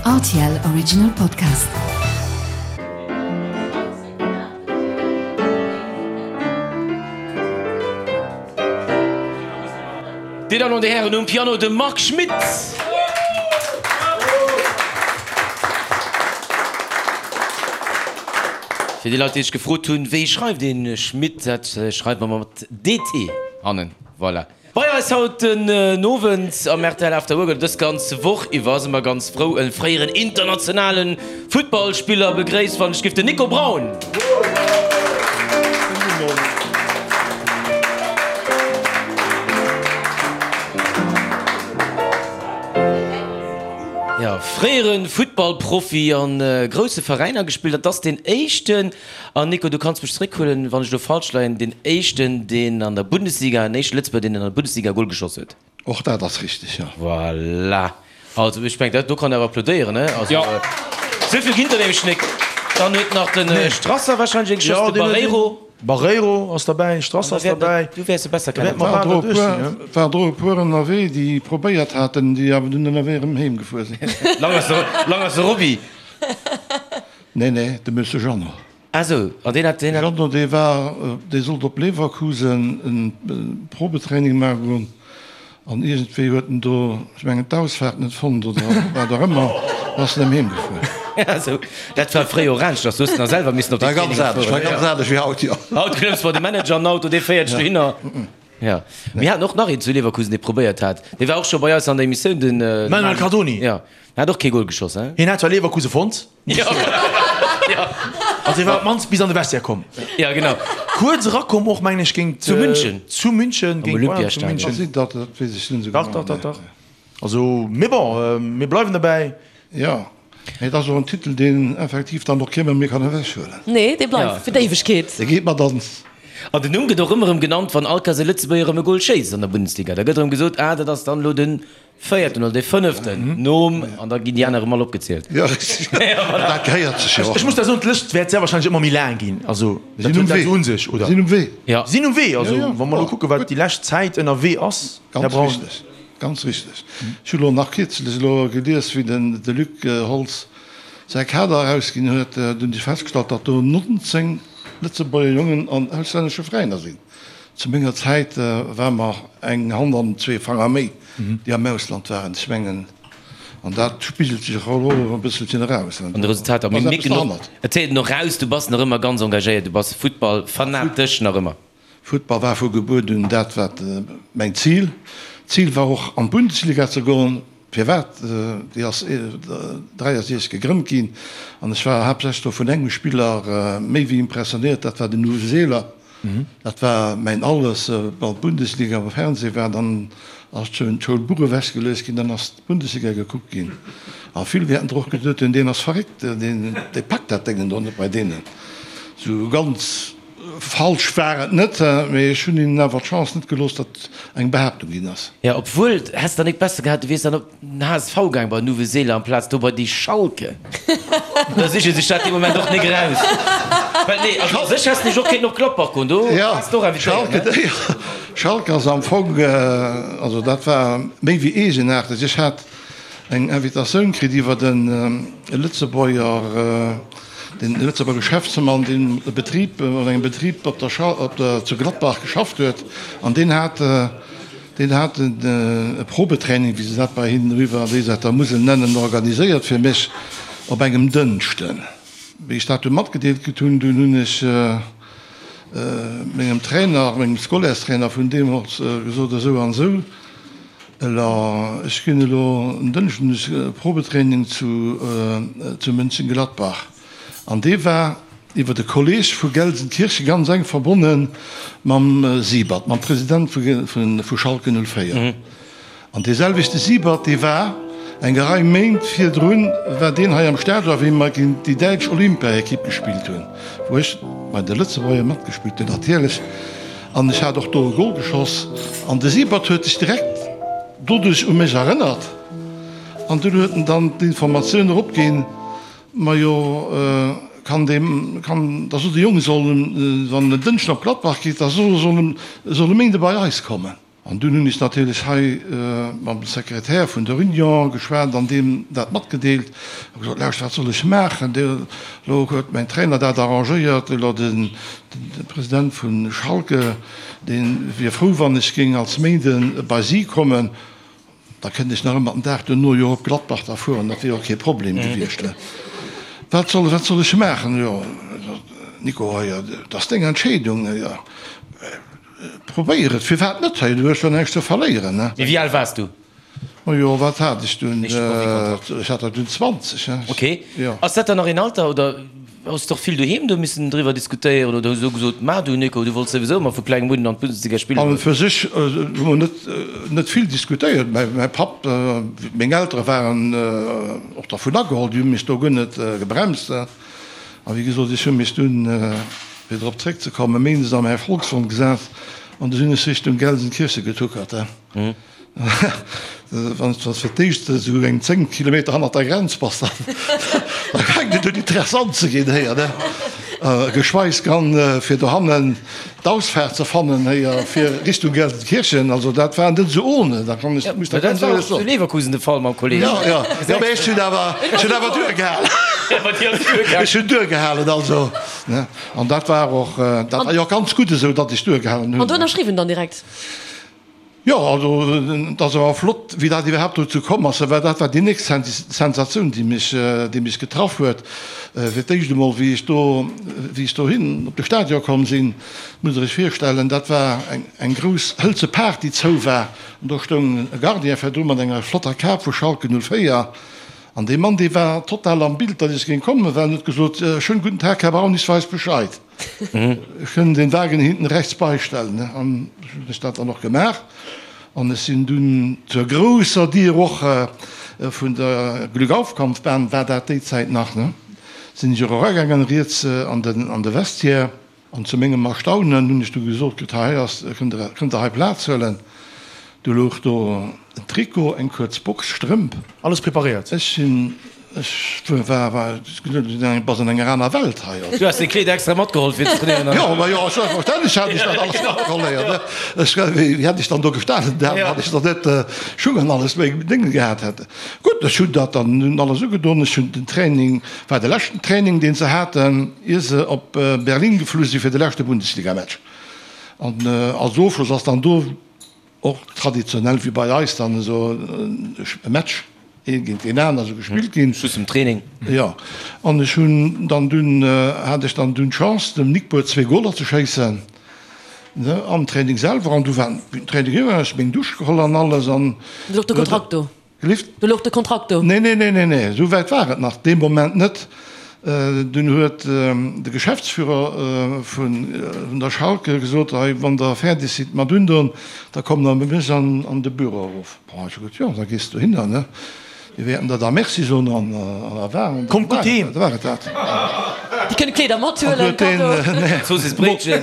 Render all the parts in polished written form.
Rtl Original Podcast. Dir Dammen an Dir Hären, um Piano de Marc Schmitt. Fir déi Leit, déi sech gefrot hunn, wéi schreift een Schmitt, dat schreift mer mat DT hannen. Voilà. Bei eis haut den Owend am rtl After Work, oder dës ganz Woch iwwer, si mer ganz frou e fréieren internationale Futtballspiller begréisst, wann ech giff, den Nico Braun. Jo, fréiere Futtballprofi a grousse Veräiner gespillt, dat ass deen éischten. An Nico, du kanns mech zeréckhuelen, wann ech elo falsch leien, deen éischten, deen an der Bundesliga, den éischte Lëtzebuerger, deen an der Bundesliga e Gol geschoss huet. Och dat ass richteg, jo. Voilà. Also, ech mengen, dat do kann een awer applaudéieren, ne? Also, Jo. esou vill ginn der nämlech nek. Dann huet nach de Strasser wahrscheinlech ee geschoss, de Barreiro. Barreiro ass derbäi, Strasser ass derbäi. Du wäers e besser kennen. War der e puer, war der e puer ënnerwee, déi probéiert haten, déi awer dunn ënnerwee erëm heem gefuer sinn. Lang ass de, lang ass de Roby. Nee, nee, de Monsieur Jeannot. Ah sou, an deen hat, deen hat. Jeannot, dee war, dee sollt op Leverkusen e Probetraining maache goen an iergendwéi huet en do, ech mengen, d'Ausfaart net fonnt oder wat och ëmmer, an ass erëm heem gefuer. Ah sou, dat war fréier och aneschters, do hues de nach selwer missen op déi Traininge fueren. War ganz anescht wéi haut, jo. Haut klëmms bei de Manager an den Auto, dee féiert dech dohinner. Jo, mir haten och nach een zu Leverkusen, dee probéiert hat, dee war och scho bei eis an der Emissioun, den Manuel Cardoni. Jo, en hat och kee Gol geschoss, hein? Hien hat zwar Leverkusen fonnt. Jo, jo. Also hie war op d'mannst bis an de Vestiaire komm. Ja, genau. Kuerz erakomm och, mengen ech, géint. Zu München. Zu München, géint Bayern zu Olympiastadion. München. Ass et dat? Dat weess ech net esou genau. Dach, dach, dach, dach. Also, mee bon, mir bleiwen derbäi. Jo, mee et ass och en Titel, deen effektiv dann och kee méi kann ewechhuelen. Nee, dee bleift fir d'Éiwegkeet. Dee geet mat ons. An den Numm gëtt och ëmmer erëm genannt, wann all Kéiers e Lëtzebuerger erëm e Gol schéisst an der Bundesliga. Da gëtt erëm gesot, ah, dat ass dann elo de véierten oder de fënneften nom, an da ginn déi aner erëm all opgezielt. Jo, richteg. Dat gehéiert sech jo och. Ech muss da soen, d'Lëscht wäert sehr wahrscheinlech ëmmer méi laang ginn. Also, dat huet dat esou un sech, oder? Sinn um Wee. Jo. Sinn um Wee. Also, wa mer elo kucken, wat déi lescht Zäit ënnerwee ass, Här Ganz Braun. richteg. Ganz richteg. Ech hu lo nach kierzlech elo gelies, wéi den de Luc Holtz säi Kader erausginn huet, do hunn ech festgestallt, datt do 19 Lëtzebuerger Jongen an auslännesche Veräiner sinn. Zu menger Zäit ware mer eng Hand an zwee Fanger méi, déi am Ausland waren. Ech mengen, an dat spigelt sech och elo e bësselchen eraus. An de Resultater. Mee mir ginn och, et héiert een och raus, du bass nach ëmmer ganz engagéiert, du bass Futtballfanatesch nach ëmmer. Futtball war vu Gebuert un dat wat mäin Zil. D'Zil war och an d'Bundesliga ze goen. Firwat? Déi ass 63 gegrënnt ginn an ech war haaptsächlech do vun engem Spiller méi wéi impressionéiert, dat war den Uwe Seeler. Dat war mäin Alles. Wann d'Bundesliga am Fernseh war, dann ass d'Schoulbuch ewechgeluecht ginn, dann ass d'Bundesliga gekuckt ginn. A vill wäerten der och geduet hunn, deen ass verréckt, deen packt dat Déngen do net bei deenen. Sou ganz. Falsch war et net, mee ech hunn hinnen awer d'Chance net gelooss, datt eng Behaaptung ginn ass. Jo, obwuel, häss der nik besser gehat, du wiers dann op den HSV gaang bei den Uwe Seeler amplaz do bei déi Schalke. Da siche sech dat dee Moment och nik eraus. Well nee, also u sech häss de nech och kéinten op Gladbach goen, do waars de och invitéiert, ne? Schalke ass am Fong, also dat war méi wéi eegenaarteg. Ech hat eng Invitatioun kritt iwwer e Lëtzebuerger, den Lëtzebuerger Geschäftsmann, deen e Betrib, an engem Betrib op der Scha, op der, zu Gladbach geschafft huet, an deen hat, deen hat e Probetraining, wéi se dat bei hinnen eriwwer an déi Säit der Musel nennen, organiséiert fir mech op engem Dënschden. Wéi ech dat du matgedeelt kritt hunn, dunn hunn ech mengem Trainer, mengem Scolaires-Trainer vun deemools gesot, esou an esou, Elo, ech ginn elo en Dënschden e Probetraining zu zu Mönchengladbach an dee war iwwer e Kolleeg vu Gelsenkirchen ganz enk verbonne mam Siebert, mam President vu Schalke 04. An dee selwechte Siebert, dee war eng Rei Méint virdrun war deen hei am Stadion, wéi mer géint déi däitsch Olympiaekipp gespillt hunn, wou ech bei de Lëtzebuerger matgespillt hunn natierlech. An ech hat och do e Gol geschoss. An de Siebert huet sech direkt doduerch u mech erënnert. An dunn huet en dann d'Informatioun eropginn, Majo, kann dee, kann, da sot de Jong, soll en, wann en en Dënschden op Gladbach geet, da soll en, soll e Méinde bei eis kommen. An dunn hunn ech natierlech hei mam Sekretär vun der Union geschwat an deem dat matgedeelt a gesot, Lauscht, wat soll ech maachen? Elo huet mäin Trainer dat arrangéiert, elo de President vu Schalke, dee wier frou, wann ech géing als Méinde bei si kommen. Da kënnt ech nach ëmmer den Dag duerno jo op Gladbach da fueren, dat wier och kee Problem gewiescht. Wat soll, wat soll ech maachen? Jo, Nico, hei, dat ass deng Entscheedung. Jo, probéier et, firwat net? Hei, du hues jo näischt ze verléieren, ne? Mee wéi al waars du? Majo, wat hat ech dunn? Ech hat der dunn 20, ne? Ok. Ass dat dann nach een Alter, oder hues de och vill doheem do missen driwwer diskutéieren oder hu se gesot, Ma du Nico, du wollts souwisou ëmmer vu klengem un an d'Bundesliga spillen? An fir sech hu mer net, net vill diskutéiert. Mäi Papp, meng Eltere waren och dervun ageholl, déi hu mech do guer net gebremst. A wéi gesot, ech hu mech dunn, fir drop zréckzekommen, méindes a mäi Volkswon gesat an du sinn ech Richtung Gelsenkirchen getuckert. Wann s de fir d'éischt esou eng 10 Kilometer hannert der Grenz bass, da fänkt et un interessant ze ginn héier, ne? Geschweigs dann fir dohannen d'Ausfaart ze fannen héier fir Richtung Gelsenkirchen. Also dat war net esou ohne, da kann ech, muss der ganz éierlech soen. Zu Leverkusen de Fall mam Kolleg. Jo, jo, jo, mee ech hunn awer, ech hunn awer duergehalen. Ech hunn duergehalen, also, ne? An dat war och, dat war jo och ganz gutt esou, datt ech duergehalen hunn. An du ënnerschriwwen dann direkt? Jo, also et ass awer flott, wéi dat iwwerhaapt dozou komm ass, well dat war déi nächst Sensatioun, déi mech, déi mech getraff huet. Fir d'éischt emol, wéi ech do, wéi ech dohin op de Stadion komm sinn, musst Der Iech virstellen, dat war eng, eng grouss hëlze Paart, déi zou war, an do stoung e Gardien virdru mat enger flotter Kap vu Schalke 04. An dee Mann, dee war total am Bild, datt ech géing kommen, well en huet gesot, Schönen guten Tag, Herr Braun, ich weiß Bescheid. Ech kënn den Wagen hinten rechts beistellen, ne? An ech hunn ech dat dann och gemaach. An ech sinn dunn zur grousser Dier och vun der Glückaufkampfbahn, war dat déi Zäit nach, ne? Sinn ech och eragaangen, riets an den, an de Vestiaire. An zu mengem Erstaunen hunn ech du gesot kritt, hei ass, kënnt Der, kënnt Der hei Plaz huelen. Du louch do en Trikot, eng kuerz Box, Strëmp. Alles preparéiert. Ech sinn, ech war, war, bass an enger aner Welt hei. Du has deng Kleeder extra matgeholl fir ze trainéieren? Jo, ma jo, selbstverständlech hat ech dat alles matgeholl, héier, ne. Ech, wéi hätt ech dann do gestanen, da wann ech dann net Schung an alles meng Dénge gehat hätt. Gutt, ech hunn dat dann nun alles ugedon. Ech hunn den Training, war de leschten Training, deen se haten, ier se op Berlin geflu si fir de leschte Bundesligamatch. An als Ofschloss ass dann do och traditionell wéi bei eis dann esou e Match ee géint deen aner esou gespillt ginn. Schluss vum Training. Jo, an ech hunn dann dunn, hat ech dann dunn d'Chance dem Nickbour zwee Goler ze schéissen, ne, am Training selwer. An du war den Training eriwwer, ech meng Dusch geholl an alles an. Du louch de Kontrakt do? Gelift? Do louch de Kontrakt do? Nee, nee, nee, nee, nee, esou wäit war et nach dee Moment net. Dunn huet de Geschäftsführer vun der Schalke gesot, Hei, wann Der fäerdeg sidd mat undoen, da kommt Der bei mech an de Büro erof. Bon, ech hu gesot, Jo, da gees du dohinner, ne? Mir wäerten der da Merci soen an da war Kommt gutt heem! da war et dat. Déi kënne Kleeder mathuelen, Cadeau. Zoossiss Bréitchen.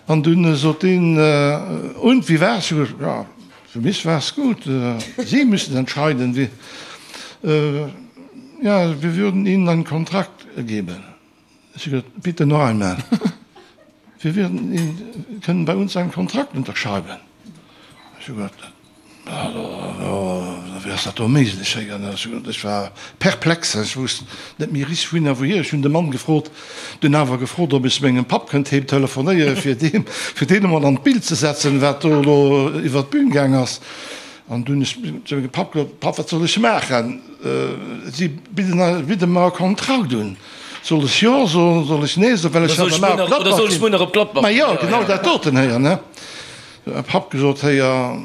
An dunn sot deen, Und, wie war's? Ech hu gesot, Jo, Für mich war's gut. Sie müssen entscheiden, wie, ja, wir würden Ihnen einen Kontrakt geben. Ech hu gesot, Bitte noch einmal. Wir würden Ihnen, können bei uns einen Kontrakt unterschreiben. Ech hu gesot, Wéi ass dat do méiglech? Ech war perplex, ech wousst net méi richteg wouhin a wouhier. Ech hunn de Mann gefrot, dunn awer gefrot, ob ech mengem Papp kënnt heem telefonéieren, fir deem, fir deen emol an d'Bild ze setzen, wat do elo iwwer d'Bün gaang ass. An dunn hunn ech zu mengem Papp gesot, Papp, wat soll ech maachen? Si bidden, bidde mer e Kontrakt un. Soll ech Jo soen, soll ech Nee soen, well ech hat op Gladbach. Ma jo, genau dat doten héier, ne? Papp gesot, Héier,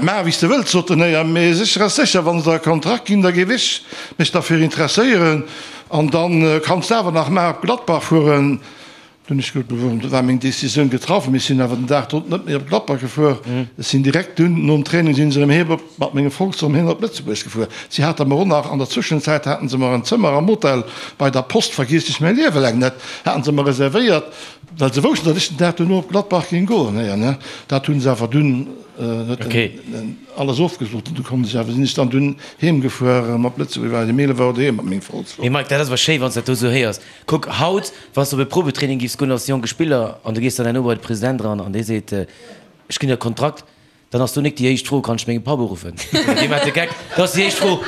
maach wéi s de wëlls, sot den Héier, mee sécher ass sécher, wann se der e Kontrakt ginn, da géif ech mech derfir interesséieren an da kanns de awer nach mar op Gladbach fueren. Dunn ech gesot, du war meng Decisioun getraff, mee ech sinn awer den Dag drop net méi op Gladbach gefuer. Ech sinn direkt dunn nom Training sinn se erëm heem op mat mengem Volks erëm heem op Lëtzebuerg gefuer. Si hate mer och nach an der Zwëschenzäit haten se mer en Zëmmer am Hotel bei der Post, vergiess ech mäi Liewe laang net, haten se mer reservéiert. Well se woussten, datt ech den Dag duerno op Gladbach géing goen. Héier, ne? Dat hu se awer dunn. huet en alles ofgesot an du konnt ech awer, sinn ech dann dunn heem gefuer erëm op Lëtzebuerg, war ech um 11 Auer doheem mat mengem Volkswagen. Mee Mike, dat ass awer schéi, wann s dat do esou héiers. Kuck, haut, wann s de op e Probetraining giffs goen als jonke Spiller an du gees dann herno bei de President eran an dee seet, ech ginn der e Kontrakt, Dann ass do nik déi éischt Fro, Kann ech mengem Papp uruffen? Dee maacht de Geck. Da ass déi éischt Fro,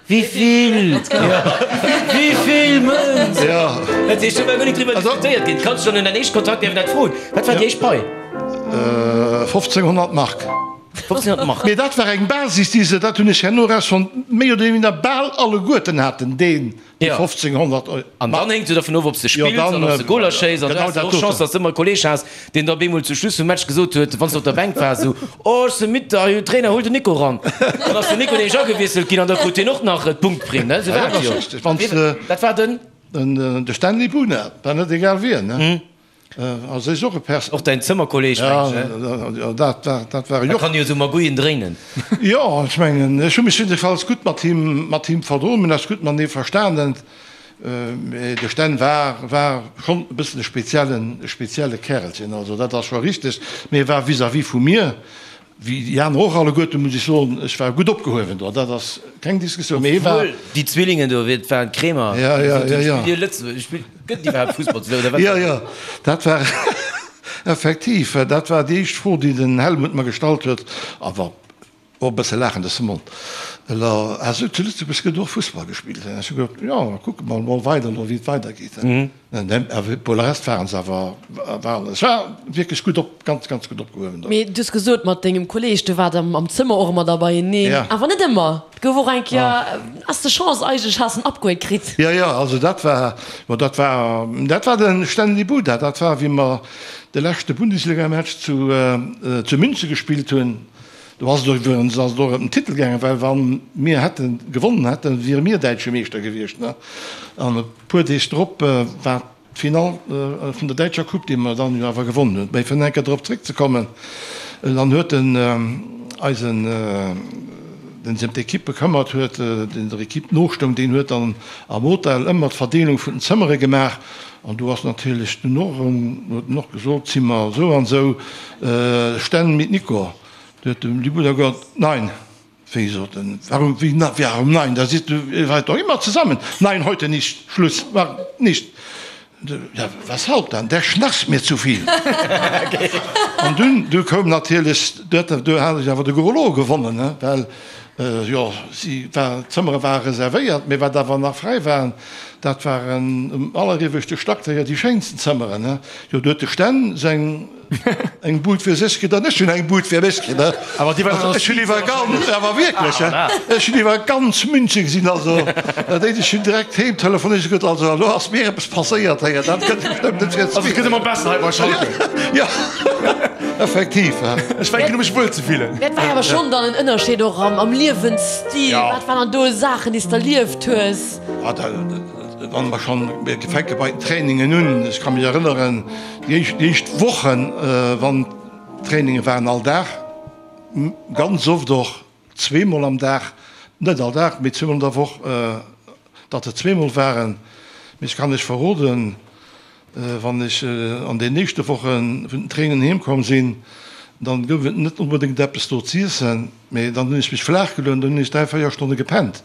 Wivill? Wivill Mënz? Dat heescht, do war guer nik driwwer diskutéiert ginn. Kanns du dann un däin éischte Kontrakt däerfen dat froen? Wat war déi éischt Pai? 1500 Mark. 1500 Mark. Mee dat war eng Basis, déi se, dat hunn ech herno erausfonnt, méi oder minder bal alleguerten haten, deen Déi 1500 Euro. An dann héngt et jo dervun of, ob s de spills an ob s de Goler schéiss. An du has och Chance, datt s de ëmmer e Kolleeg has, deen da bemol zum Schluss vum Match gesot huet, wann s de op der Bänk waars, esou, Oh, ech si midd, hei, Trainer, huel den Nico eran. Dann ass den Nico nämlech agewiesselt ginn an da krut hien och nach d'Punktprimm, ne? Esou war et jo. Dat war den? De Stanley Buna, war net egal wien, ne? Also is och e Pers. Och däin Zëmmerkolleg, mengen ech, ne? Dat war, dat war e Joch. Da kann jo esou Magouillen dréinen. Jo, ech mengen, ech hu mech jiddefalls gutt mat him, mat him verdroen, mir hunn eis gutt matenee verstanen. Mee de Sten war, war schonn e bëssen e speziellen, e spezielle Kärelchen, also dat ass scho richteg. Mee e war vis-à-vis vu mir Wéi déi aner och alleguerten, muss ech soen, ech war gutt opgehuewen do, dat ass keng Diskussioun, mee hie war. Obwuel déi Zwillingen do, et waren d'Kremer, déi gesot hunn, spillt dir Lëtzebuerg, spillt, gëtt et iwwerhaapt Fussball zu Lëtzebuerg oder wat? Jo, jo, dat war effektiv, dat war déi éischt Fro, déi den Helmut mer gestallt huet, awer och e bësse laachend aus dem Mond, Elo, ah sou, zu Lëtzebuerg gëtt och Fussball gespillt? Ech hu gesot, Jo, kucke mer emol weider elo, wéi et weidergeet. Pour le reste waren se awer, waren, ech war wierklech gutt op, ganz, ganz gutt opgehuewen do. Mee du hues gesot, mat dengem Kolleeg, du waart am Zëmmer och ëmmer da beieneen, awer net ëmmer. Et gouf och eng Kéier, has de Chance eigentlech, has en Upgrade kritt. Jo, jo, also dat war, bon, dat war, dat war de Stanley Buda, dat war wéi mer de leschte Bundesligamatch zu, zu München gespillt hunn. Do ass et och iwwerens ass et och ëm den Titel gaangen, well wa mir hätte gewonnen hätten, wiere mir däitsche Meeschter gewiescht. An e puer Deeg drop war d'Finall vun der däitscher Coupe, déi mer dann jo awer gewonnen hunn. Mä fir nach eng Kéier drop zréckzekommen, dann huet den eisen, deen sech ëm d'Ekipp bekëmmert huet, deen der Ekipp nostoung, deen huet dann am Hotel ëmmer d'Verdeelung vun den Zëmmere gemaach. An do ass natierlech dunn och erëm, huet en och gesot, Zimmer esou an esou, Stänn mit Nico. Du huet de Bruder gesot, Nein. Wéi, sot en, warum, wéi, warum nein, da siehst du, ihr seid doch immer zusammen. Nein, heute nicht, Schluss, war nicht. Ja, weshalb dann? Der schnarcht mir zu viel. An dunn, du koum natierlech, du hat, du hat ech awer de Gros Lot gewonnen, ne, well, jo, si war, d'Zëmmere ware reservéiert, mee wat awer nach fräi waren, dat waren um allerieweschte Stack déi schéinsten Zëmmeren, ne. Jo, du huet de Sten seng. Eng Bud fir sech kritt an ech hunn eng Bud fir mech kritt. Awer déi war dann Ech hunn iwwer ganz, awer wierklech, ech hunn iwwer ganz München gesinn. Also dat éischt, ech hunn direkt heem telefonéiert, ech gesot, also elo ass mir eppes passéiert héier, dat gëtt bestëmmt net fir Also et gëtt ëmmer besser hei bei Schalke. Jo, effektiv. Ech fänken u mech wuel ze fillen. Mä et war jo awer schonn dann en Ënnerscheed och am Liewensstil. Wat waren dann do Saachen, déi s de erlieft hues? Wann mer schonn, mir fänke bei den Trainingen un, ech ka mech erënneren, déi éischt, déi éischt Wochen, wann d'Traininge waren all Dag, ganz oft och zweemol am Dag, net all Dag, mee zweemol an der Woch, datt et zweemol waren. Mee ech kann lech verroden, wann ech an den éischte Woche vun den Trainingen heem komm sinn, dann gouf et net onbedéngt eppes do z'iessen, mee dann hunn ech mech flaach geluecht an dann hunn ech 3, 4 Stonne gepennt.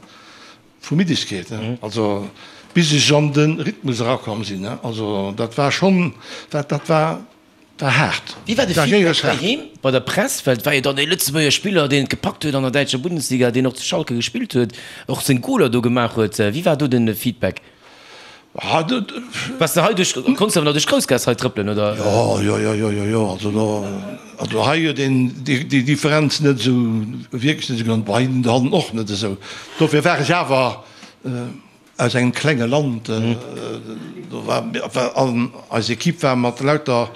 Vu Middegkeet, also bis ech an de Rhythmus erakomm sinn, also dat war schonn, dat dat war war haart. Wéi war de Feedback heiheem bei der Press? Well et war jo dann ee Lëtzebuerger Spiller, deen et gepackt huet an der däitscher Bundesliga, deen och zu Schalke gespillt huet, och seng Goler do gemaach huet. Wéi war do de Feedback? Waars de hei duerch, konns de awer nach duerch d'Groussgaass hei trëppelen, oder? Jo, jo, jo, jo, jo, jo, also do, also hei huet een déi, déi Differenz net esou, wierklech net esou genannt, bei den och net esou. Dofir war ech awer aus engem klenge Land, do war, war, an eis Equipe war mat lauter,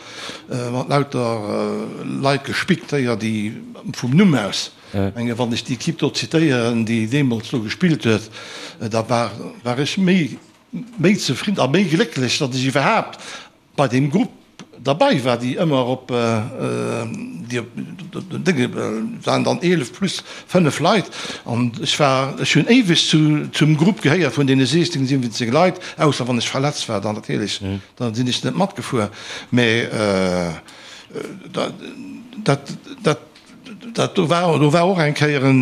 mat lauter Leit gespickt, déi, déi vum Numm aus. Menge wann ech déi Equipe do zitéieren, déi deemools do gespillt huet, da war war ech méi méi zefridden a méi glécklech, datt ech iwwerhaapt bei deem Grupp derbei war, déi ëmmer op déi op den Dénge waren dann 11 plus 5 Leit an ech war ech hunn éiweg zu zum Grupp gehéiert vun deene 16, 17 Leit, ausser wann ech verletzt war, dann natierlech, da sinn ech net matgefuer, mä dat dat dat. Dat do war, do war och eng Kéier en,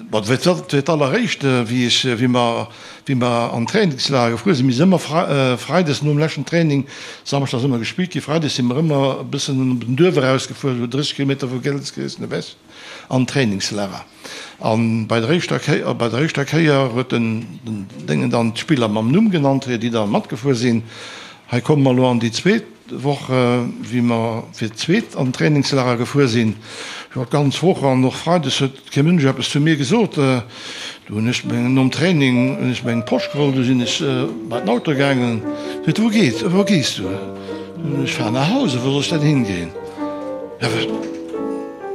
bon, dat war fir d'alleréischt, wéi ech, wéi mer, wéi mer an d'Trainingslager gefuer sinn. Mir sinn ëmmer freides nom leschten Training, samschdes ass ëmmer gespillt ginn, freides si mer ëmmer e bëssen op den Duerf erausgefuer, esou 30 Kilometer vu Gelsenkirchen ewech, an d'Trainingslager. A bei der éischter Kéier, bei der éischter Kéier huet den, den Déngen dann d'Spiller mam Numm genannt, déi da matgefuer sinn. Hei komme mer elo an déi zweet Woch, wéi mer fir d'zweet an d'Trainingslager gefuer sinn. Jo, d'ganz Woch an och freides huet kee Mënsch eppes zu mir gesot. Du hunn ech meng, nom Training hunn ech meng Posch geholl, du sinn ech bei den Auto gaangen. Seet, Wou geet, wou gees du? Ech fahren nach Hause, wou soll ech denn hingeen? Ja,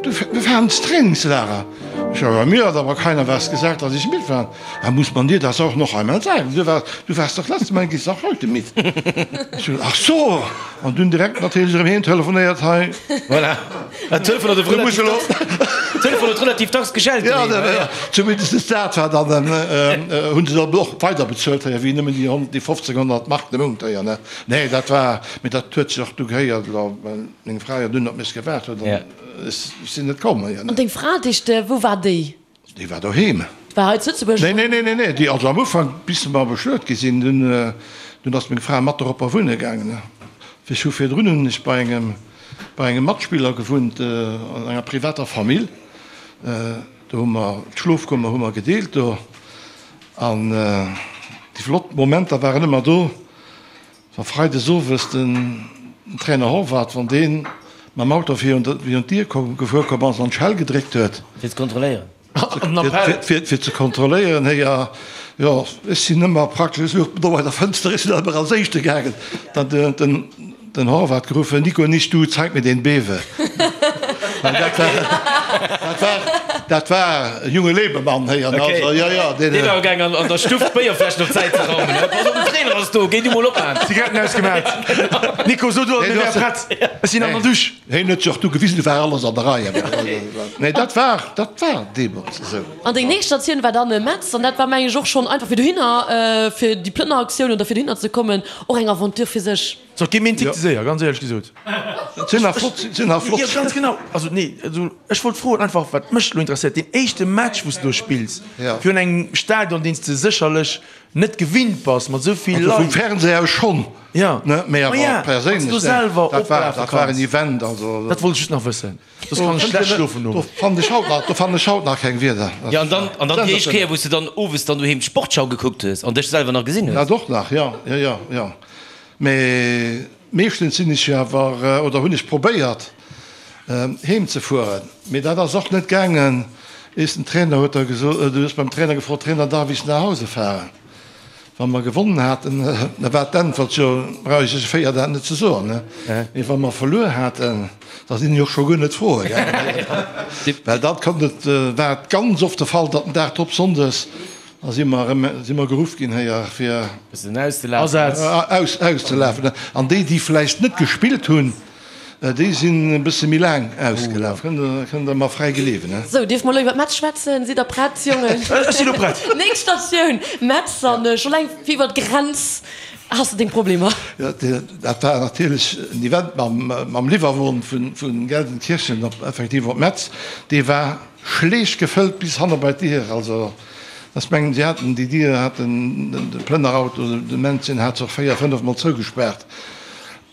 du, wir fahren ins Trainingslager. Ich sag, ja, mir hat aber keiner was gesagt, dass ich mitfahren. Da muss man dir das auch noch einmal sagen. Du warst, du warst doch letztes Mal, gehst auch heute mit. Ich so, ach so! An dunn direkt natierlech erëm heem telefonéiert, hei. Voilà. Dat Telefon huet relativ dacks, Telefon huet relativ dacks geschellt. Ja, ja, zumindest dat war dann, hunn se dann och weider bezuelt, hei, wéi nëmmen déi 100, déi 15, 100 Mark de Mount, hei, ne. Nee, dat war, mee dat huet sech och du gehéiert, well meng Fra jo dunn op mech gewaart huet an ech sinn net komm, hei, ne. An deng Fra, déi, wou war déi? Déi war doheem. War hei zu Lëtzebuerg? Nee, nee, nee, nee, nee, déi, also am Ufank, bis mer bestuet gi sinn, dunn, dunn ass meng Fra mat doropper wunne gaangen. Ech hu virdrun hunn ech bei engem, bei engem Matspiller gewunnt, an enger privater Famill. Do hu mer d'Schlofkummer hu mer gedeelt do. An déi flott Momenter waren ëmmer do, Wa freides owes den Trainer Horvath, wann dee mam Auto virun d'Dier gefuer komm ass an d'Schell gedréckt huet. Fir ze kontrolléieren. Fir ze kontrolléieren, héi, jo, ech sinn ëmmer praktesch, ech louch do bei der Fënster, ech sinn ëmmer als Éischte gaangen. Dann huet den Horvath geruffen, Nico, nicht du, zeig mir den Bewe. Dat war, dat war e junge Lebemann, héi, an also, jo, jo, deen. Deen war gaangen an der Stuff d'Béierfläschen op d'Säit ze raumen, he, pass op, den Trainer ass do, géi du mol opmaen. Zigaretten ausgemaat. Nico, so du, mir wäre prett, ech sinn an der Dusch. Hien huet sech och du gewisen, du war alles an der Rei. Nee, dat war, dat war deemools esou. An deng nächst Statioun war dann Metz, an dat war, meng ech, och schonn einfach fir dohinner, fir déi Plënneraktioun oder fir dohinner ze kommen, och eng Aventure fir sech. So, et geet mir een Tick ze séier, ganz éierlech gesot. Et sinn nach flott, sinn nach flott. Jo, ganz genau. Also, nee, also ech wollt froen einfach, wat mech elo interesséiert, deen éischte Match, wou s de do spills, virun engem Stadion, deen s de sécherlech net gewinnt bass, mat esou vill Leit. Also vum Fernseh aus schonn, ne, mee awer perséinlech, dat war, dat war en Event, also. Dat wollt ech just nach wëssen. Soss kann ech schlecht schlofen nom. Do fannen ech haut nach, do fannen ech haut nach keng Wierder. Jo, an dann, an dann déi éischt Kéier, wou s de dann owes dann doheem d'Sportschau gekuckt hues an dech selwer nach gesinn hues. Dat och nach, jo, jo, jo, jo. Mee meeschtens sinn ech jo awer, oder hunn ech probéiert, heem ze fueren. Mee dat ass och net gaangen. Eis den Trainer huet da gesot, du hues beim Trainer gefrot, Trainer, darf ich nach Hause fahren? Wa mer gewonnen haten, da war d'Äntwert, jo, brauch ech iech 4 dat net ze soen, ne? Mee wa mer verluer haten, da sinn ech och scho guer net froe gaangen. Well dat konnt et, war et ganz oft de Fall, datt den Dag drop, sonndes, da si mer erëm, si mer geruff ginn héier fir. Bëssen auszelafen. Aus, auszelafen. An déi, déi vläicht net gespillt hunn, Déi sinn e bësse méi laang ausgelaf, kënnt der mer fräi gleewen. Sou, dierfe mer elo iwwer Metz schwätzen? Sidd der prett, Jongen? Ech sinn elo prett. Nächst Statioun, Metz. An scho laang fir iwwer d'Grenz has de deng Problemer. Jo, dat war natierlech en Event mam Liwwerwon vu Gelsenkirchen op, effektiv op Metz. Dee war schleech gefëllt bis hanne bei d'Dier. Also, ech mengen, si haten déi Dier, haten de Plënnerauto, de Männchen hat se och véier, fënnefmol zougespaart.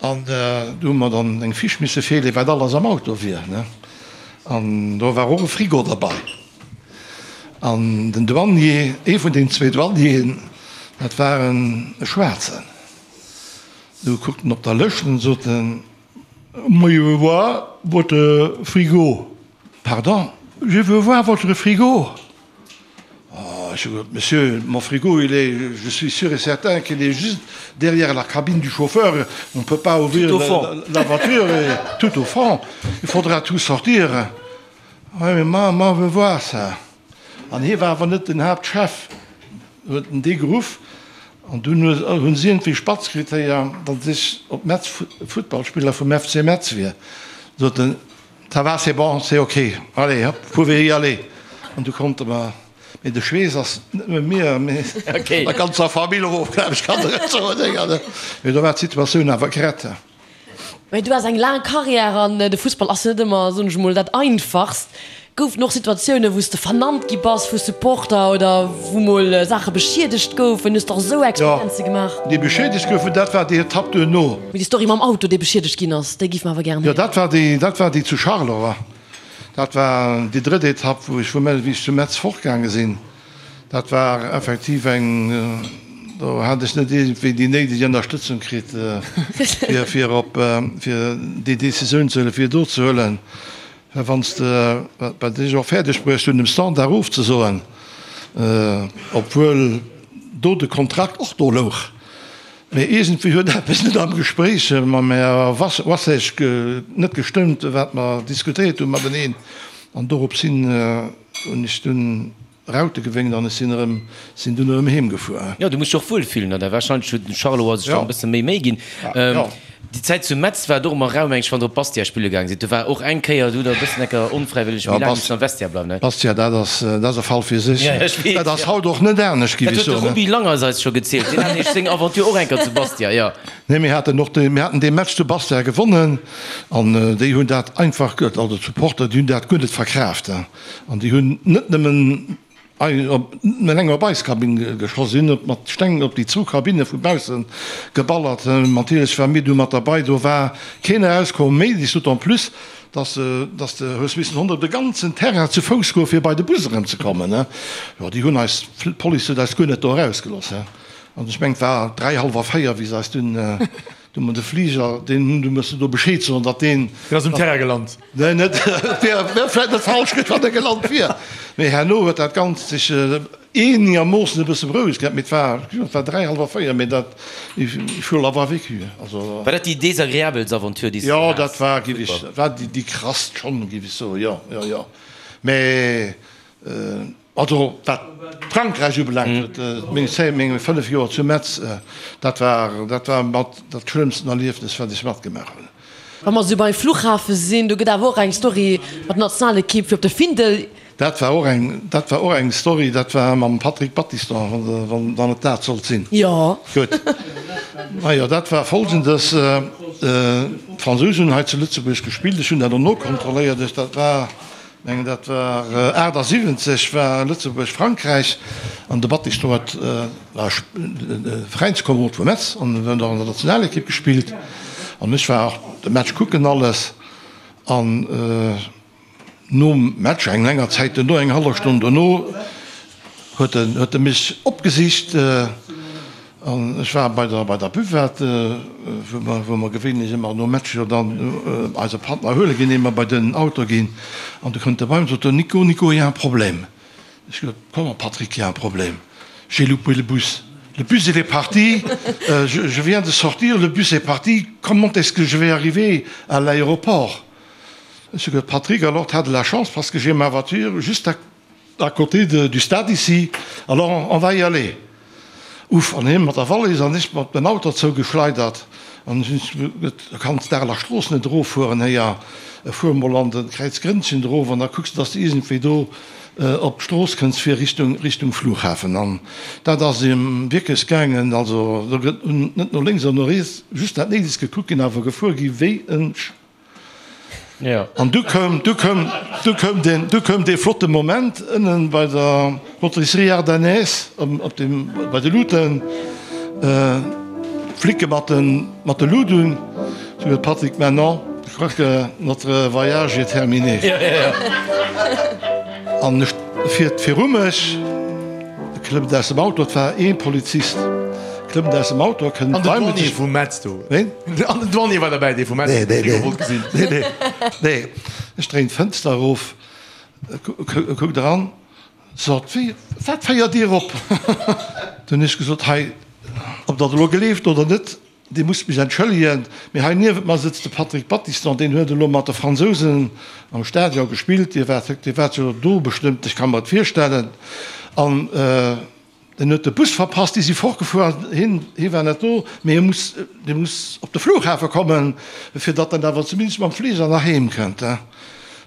An do hu mer dann eng Fiche misse virleeën, wat alles am Auto wier. An do war och e Frigo derbei. An den Douanier, ee vun den zwee Douanieren, dat war en Schwaarzen, du kuckt en op der Lëscht an sot en, Moi je veux voir votre frigo. Pardon? Je veux voir votre frigo. Oh, ech hu gesot, Monsieur, mon frigo, il est, je suis sûr et certain qu'il est juste derrière la cabine du chauffeur, on ne peut pas ouvrir la voiture, et tout au fond, il faudra tout sortir. Oui, mais moi, moi, je veux voir ça. An hie war awer net den Haaptchef, huet en dee geruff, an dunn hunn si iergendwéi spatz kritt, héier, datt ech op Metz Futtballspiller vum FC Metz wier. Sot en, Ça va, c'est bon, c'est ok, allez hop, vous pouvez y aller. An du konnte mer, mee de Schweess ass net nëmme mir, mee der ganzer Famill erof, glaw ech, kann der et soen. Mee do war d'Situatioun awer gerett. Mä du has eng laang Karriär an de Fussball ass jo net ëmmer, soen ech emol, dat Einfachst. Goufen och Situatiounen, wou s de vernannt gi bass vu Supporter oder wou mol Saache beschiedegt goufen? Hues de och esou Experienze gemaach? Jo, déi beschiedegt goufen, dat war déi Etapp duerno. Mee déi Story mam Auto, dee beschiedegt ginn ass, déi géife mer awer gären héieren. Jo, dat war déi, dat war déi zu Charleroi. Dat war déi drëtt Etapp, wou ech vu, wéi ech zu Metz fortgaange sinn. Dat war effektiv eng, do hat ech net iergendwéi déi néideg Ënnerstëtzung kritt, fir, fir op, fir déi Decisioun ze huelen, fir do ze huelen. Well wann s de, wat ech och fäerdeg bruecht hunn, dem Standard ofzesoen, obwuel do de Kontrakt och do louch, mee iergendwéi huet eppes net am Gespréich mam Här Wassesch net gestëmmt, wat mer diskutéiert hu mateneen, an dorops hin hunn ech dunn Raute gewénkt an ech sinn erëm, sinn dunn erëm heem gefuer. Jo, du muss dech och wuel fillen an da wahrscheinlech huet den Charleroi sech dann e bësse méi Méi ginn. Déi Zäit zu Metz war et och ëmmer rau, meng ech, wann der op Bastia spille gaang sidd. Do war och eng Kéier, do hutt der e bëssen enker onfräiwëlleg méi laang missen am Vestiaire bleiwen, ne? Bastia, dat ass, dat ass e Fall fir sech. Ja, ech weess, Dat ass haut och net anescht, giff ech soen. Dat huet de Roby Langers eis scho gezielt, deen hat nämlech seng Aventure och eng Kéier zu Bastia, jo. Nee, mir haten och dee, mir haten dee Match zu Bastia gewonnen an déi hunn dat einfach, also d'Supporter, déi hunn dat guer net verkraaft. An déi hunn net nëmmen eleng op eis Kabinn geschoss, si hunn och mat Steng op déi zwou Kabinne vu bausse geballert. Natierlech ware mir du mat derbei, do war keen erauskomm méi, d'autant plus, dass dass de hues missen honnert de ganzen Terrain zu Fouss goe fir bei de Bus erëmzekommen. Jo, déi hunn eis, d'Police huet eis guer net do erausgelooss. An ech mengen, et war 3, hallwer 4, wéi se eis dunn Du mat de Fliger, deen hunn, du muss do Bescheed soen, datt deen. Deen ass um Terrain gelant. Nee, net, wär, wär vläit net falsch gewiescht, wann e gelant wier. Mee herno huet dat Ganzt sech eenegermoossen e bësse berouegt gehat. Mee et war, et war 3, hallwer 4, mee dat, il faut l'avoir vécu, also. War dat déi desagreabelst Aventure, déi s du haas? Jo, dat war, géif ech, war déi, déi krasst schonn, géif ech soen, jo, jo, jo. Mee. Also wat Frankräich ubelaangt, meng Zäit, meng 5 Joer zu Metz, dat war, dat war mat dat schlëmmsten Erliefnes, wat ech matgemaach hunn. Wa mer esou beim Fluchhafe sinn, do gëtt awer och eng Story mat der Nationalekipp fir op de Findel. Dat war och eng, dat war och eng Story, dat war mam Patrick Battiston, wann, wann et dat sollt sinn. Jo. Gutt. Majo, dat war Folgendes, D'Fransousen hunn hei zu Lëtzebuerg gespillt, ech hunn dat och nokontrolléiert, ech, dat war, Mengen dat war 78 war Lëtzebuerg Frankräich an de Battiston huet war Veräinskomerod vu Metz an huet och an der Nationalekipp gespillt an ech war och de Match kucken alles an nom Match eng länger Zäit duerno eng hallef Stonn dono huet en huet e mech opgesicht An ech war bei der, bei der Buvette, wou mer, wou mer gewéinlech ëmmer nom Match jo dann eise Patt nach huele ginn, ier mer bei den Auto ginn. An du kënnt e bei mech an sot, Nico, Nico, il y a un problème. Ech gesot, Comment Patrick, il y a un problème? J'ai loupé le bus. Le bus il est parti, je, je viens de sortir, le bus est parti, comment est-ce que je vais arriver à l'aéroport? Ech hu gesot, Patrick, alors t'as de la chance parce que j'ai ma voiture juste à À côté de, du stade ici, alors on va y aller. Uff, an hien mat der Wallis an ech mat dem Auto zougeschleidert. An ech hunn gesot, Du kanns d'Areler Strooss net eroffueren, héier, fuer mol an de Kräiz Grënnchen erof an da kucks de, dass de iergendwéi do op d'Strooss kënns fir Richtung, Richtung Flughafen. An dat ass em wierklech gaangen. Also do gëtt net no lénks an no riets, just dat Néidegst gekuckt ginn, awer gefuer gi wéi en. An du koum, du koum, du koum deen, du koum dee flotte Moment ënnen bei der Rôtisserie Ardennaise, op dem, bei de Luuten, d'Flicke mat de, mat de Lut un. Sou huet Patrick, maintenant, je crois que notre voyage est terminé. An ech fiert viru mech. Klëmmt aus dem Auto, et war ee Polizist, klëmmt aus dem Auto, kënnt An den Douanier vu Metz do. Ween? An den Douanier war derbäi, dee vu Metz, Nee, nee, dee wollt gesinn. nee, nee, nee. Ech dréin d'Fënster erof, kuckt eran, sot, Wéi, wat féiert Dir op? Dunn hunn ech gesot, Hei, ob Der et elo gleeft oder net, Dir musst mech entschëllegen, mee hei niewent mer sëtzt de Patrick Battiston, deen huet elo mat de Fransousen am Stadion gespillt. Dir waart, Dir waart jo do bestëmmt, ech ka mer et virstellen. An en huet de Bus verpasst, déi si fortgefuer an hien, hie war net do, mee hie muss, dee muss op de Flughafe kommen, fir datt en awer zumindest mam Fliger nach heem kënnt.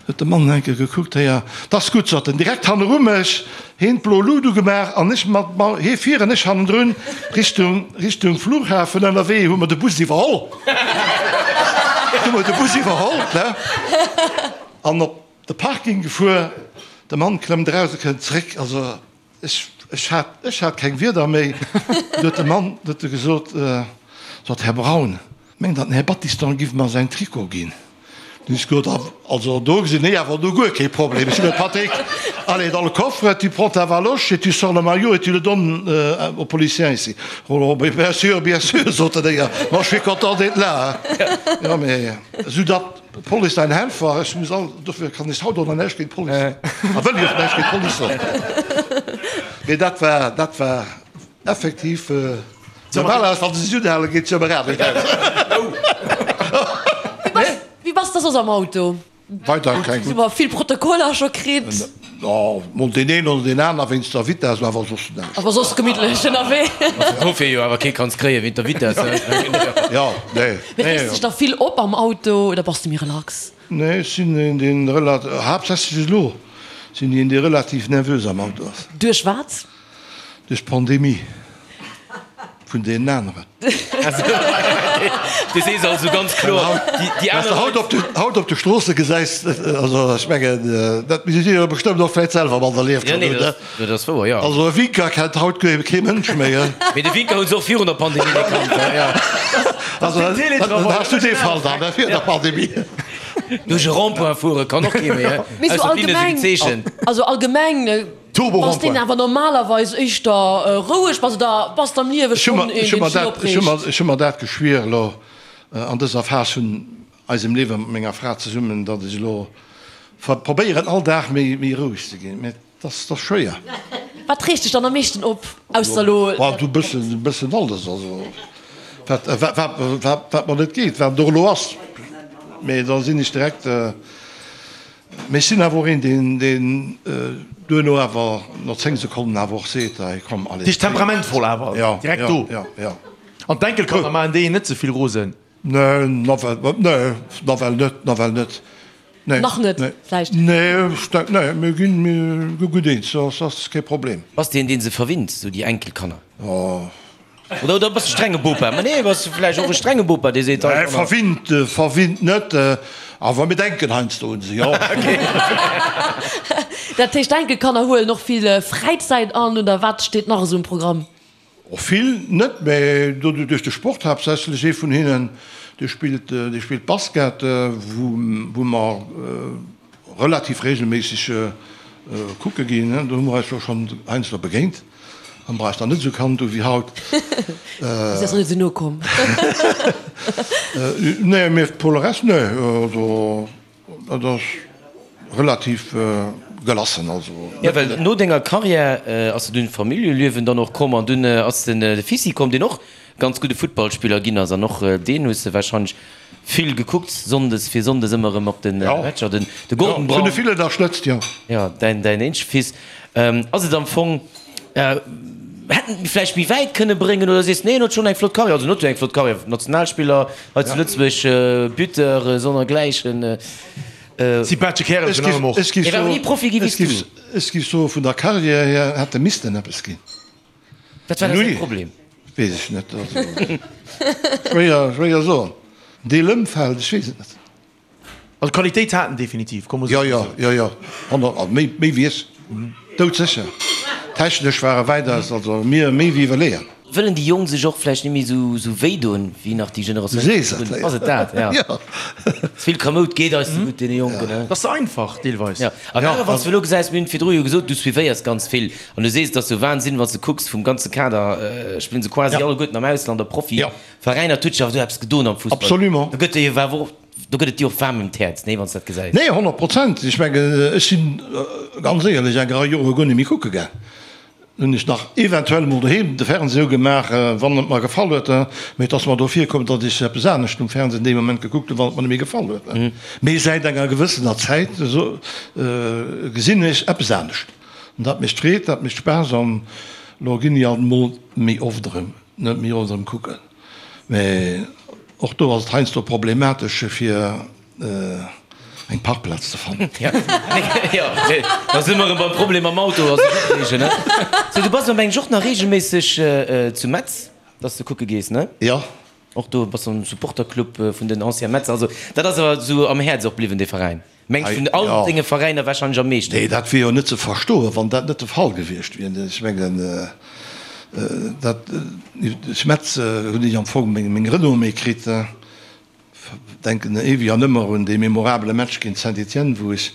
Huet de Mann enke gekuckt, Héier, 't ass gutt, sot en, direkt hanneru mech, heen d'blo Lut ugemaach an ech mat, ma hee vir an ech hannendrun, Richtung, Richtung Flughafen. Ënnerwee hu mer de Bus iwwerholl. Du hu mer de Bus iwwerholl, ne, an op de Parking gefuer. De Mann klëmmt eraus a kënnt zréck. Also ech, ech hat, ech hat keng Wierder méi. Du huet de Mann, du huet e gesot, sot, Här Braun, Mengt der den Här Battiston giff mer säin Trikot ginn? Dunn ech gesot, Also do gesinn ech awer elo guer kee Problem. Ech hunn gesot, Patrick, allez dans le coffre, tu prends ta valoche et tu sors le maillot et tu le donnes au policier ici. Oh, mais bien sûr, bien sûr, sot den Déier, moi je suis content d'être là. Jo, mee esou datt d'Police dein Helfer, ech muss all, dofir kann ech haut och nach näischt géint d'Police soen, a wëll ech och näischt géint d'Police soen. Mee dat war, dat war effektiv. Normalerweis, wann se sech unhalen, geet se jo ëmmer anescht aus. Wéi bass de soss am Auto? Weider keng. Hu mer vill Protokoller scho kritt. Jo, mol deen een oder deen aner wéinst der Vitess, awer soss näischt. Awer soss gemittlech ënnerwee. Dofir jo awer kee kanns kréie wéint der Vitess. Jo, nee. Mee reegst dech da vill op am Auto oder bass de méi relax? Nee, ech sinn een, deen relat-, haaptsächlech elo sinn een, dee relativ nervös am Auto ass. Duerch wat? Duerch d'Pandemie vun deenen aneren. Du sees also ganz kloer, déi aner Leit. Wat s de haut op de Stroosse gesäis, also ech mengen, dat misst Dir jo bestëmmt och vläicht selwer mat erlieft hunn, oder? Dat ass wouer, jo. Also e Winker kennt haut kee Mënsch méi. Mee de Winker hu se och virun der Pandemie net kannt. Also dann has du dee Fall dann, virun der Pandemie. Duerch e Rond-point fuere kann och kee méi, Mee sou ausser d'Linne si allgemeng, gezeechent. also allgemeng. Bass deen awer normalerweis éischter roueg bass oder bass de am Liewe schonn een, deen sech opreegt? Ech hu mer dat geschwier elo an dëser Phas vun eisem Liewe mat menger Fra zesummen, datt ech elo probéieren all Dag méi roueg ze ginn, mä et ass schwéier. Wat reegt dech dann am meeschten op, ausser elo? Du e bëssen alles, also wat wat mer net geet, wat et och elo ass, mä da sinn ech direkt. Mee ech sinn awer och een, deen, deen duerno awer no 10 Sekonnen awer och seet, hei komm, allez. Dich temperamentvoll awer, direkt do. Ja, ja. An d'Enkelkanner maachen déi een net ze vill rosen? Nee, nawell, nee, nawell net, nawell net. Nee. Nach net, vläicht? Nee, ech denk, nee, mir ginn, mir gi gutt eens, dat ass kee Problem. Bass de een, dee se verwinnt, sou déi Enkelkanner? Oh. Oder, oder bass de strenge Bopa? Ma nee, bass de vläicht och e strenge Bopa, dee seet, Nee, verwinnt, verwinnt net, awer mir denken heiansdo un se, jo. Dat heescht, d'Enkelkanner huelen och vill Fräizäit an, oder wat steet nach esou um Programm? Och vill net, mä duerch de Sport haaptsächlech. Ee vun hinnen, dee spillt, dee spillt Basket, wou, wou mer relativ regelméisseg kucke ginn. Do hu mer eis jo schonn heiansdo begéint. Am war ech nach net esou kannt u wéi haut. Si ass nach net esou no komm. Nee, mee pour le reste, nee, also dat ass relativ gelassen, also. Jo, well no denger Carrière ass de dunn d'Familljeliewen dann och komm an dunn ass den Fissi komm, deen och ganz gudde Futtballspiller ginn ass an och deen hues de warscheinlech vill gekuckt, sonndes fir sonndes ëmmer erëm op de Matcher, den de Gordon Brown. Vun de vill ënnerstëtzt, jo. Jo, däin däin eenzege Fils. Ass et am Fong, hätt en et vläicht méi wäit kënne bréngen oder sees nee, en huet schonn eng flott Karriär, also en huet jo eng flott Karriär, Nationalspiller hei zu Lëtzebuerg, Buteur, sonnergläichen. Sympathesche Kärel virun allem och. Hie war awer ni Profi gi wéi s du. Ech géif soe vun der Karriär hier hätt e missten eppes ginn. Wat war da säi Problem? Weess ech net. Also, schwéier, schwéier soen. Deel Ëmfeld, ech weess et net. Also Qualitéit hat en definitiv, komm Jo, jo, jo, jo, 100, also méi, méi wéi ech, doudsécher. Technesch war e wäitaus, also mir méi wéi iwwerleeën. Wëllen déi Jonk sech och vläicht net méi esou, esou wéi doen, wéi nach déi Generatioun Du sees et, virdrun? Ass et dat, ja. Jo. Ze vill Kamoud geet eis ze gutt, deene Jonken, ne? Dat ass ze einfach, deelweis. Jo, a grad wann s du elo gesäis, mir hunn virdru jo gesot, du suivéiers ganz vill an du sees, et ass jo Wahnsinn, wann s du kucks, vum ganze Kader spillen se quasi alleguerten am Ausland a Profiveräiner. Et huet sech awer do eppes gedoen am Fussball. Absolument. Do gëtt dir jo awer och, do gëtt et dir och waarm ëm d'Häerz, nee, wann s du dat gesäis. Nee, 100 Prozent. Ech mengen, ech sinn ganz éierlech eng Rei Jore guer net méi kucke gaang. Hunn ech nach eventuell emol doheem de Fernseh ugemaach, wann et mer gefall huet, mee et ass mer do virkomm, datt ech eppes anescht um Fernseh dee Moment gekuckt hunn, wann et mer net méi gefall huet. Mee säit enger gewëssener Zäit gesinn ech eppes anescht an dat mécht Freed, dat mécht Spaass an elo ginn ech alt emol méi oft erëm, net méi oft erëm kucken. Mee och do ass et heiansdo problematesch fir eng Parkplaz ze fannen. Jo, da si mer erëm beim Problem mam Auto a sech opreegen, ne? Sou, du bass am eng och nach reegelméisseg zu Metz, dass de kucke gees, ne? Jo. Och do bass am Supporterclub vun den Anciens Metzer. Also dat ass awer esou am Häerz och bliwwen, dee Veräin. Mengs vun all denge Veräiner warscheinlech am meeschten. Nee, dat wier jo net ze verstoen, wann dat net de Fall gewiescht wier. Ech mengen, dat, duerch Metz hunn ech am Fong meng Renommée kritt. Denken éiweg an ëmmer un dee memorabele Match géint Saint-Étienne, wou ech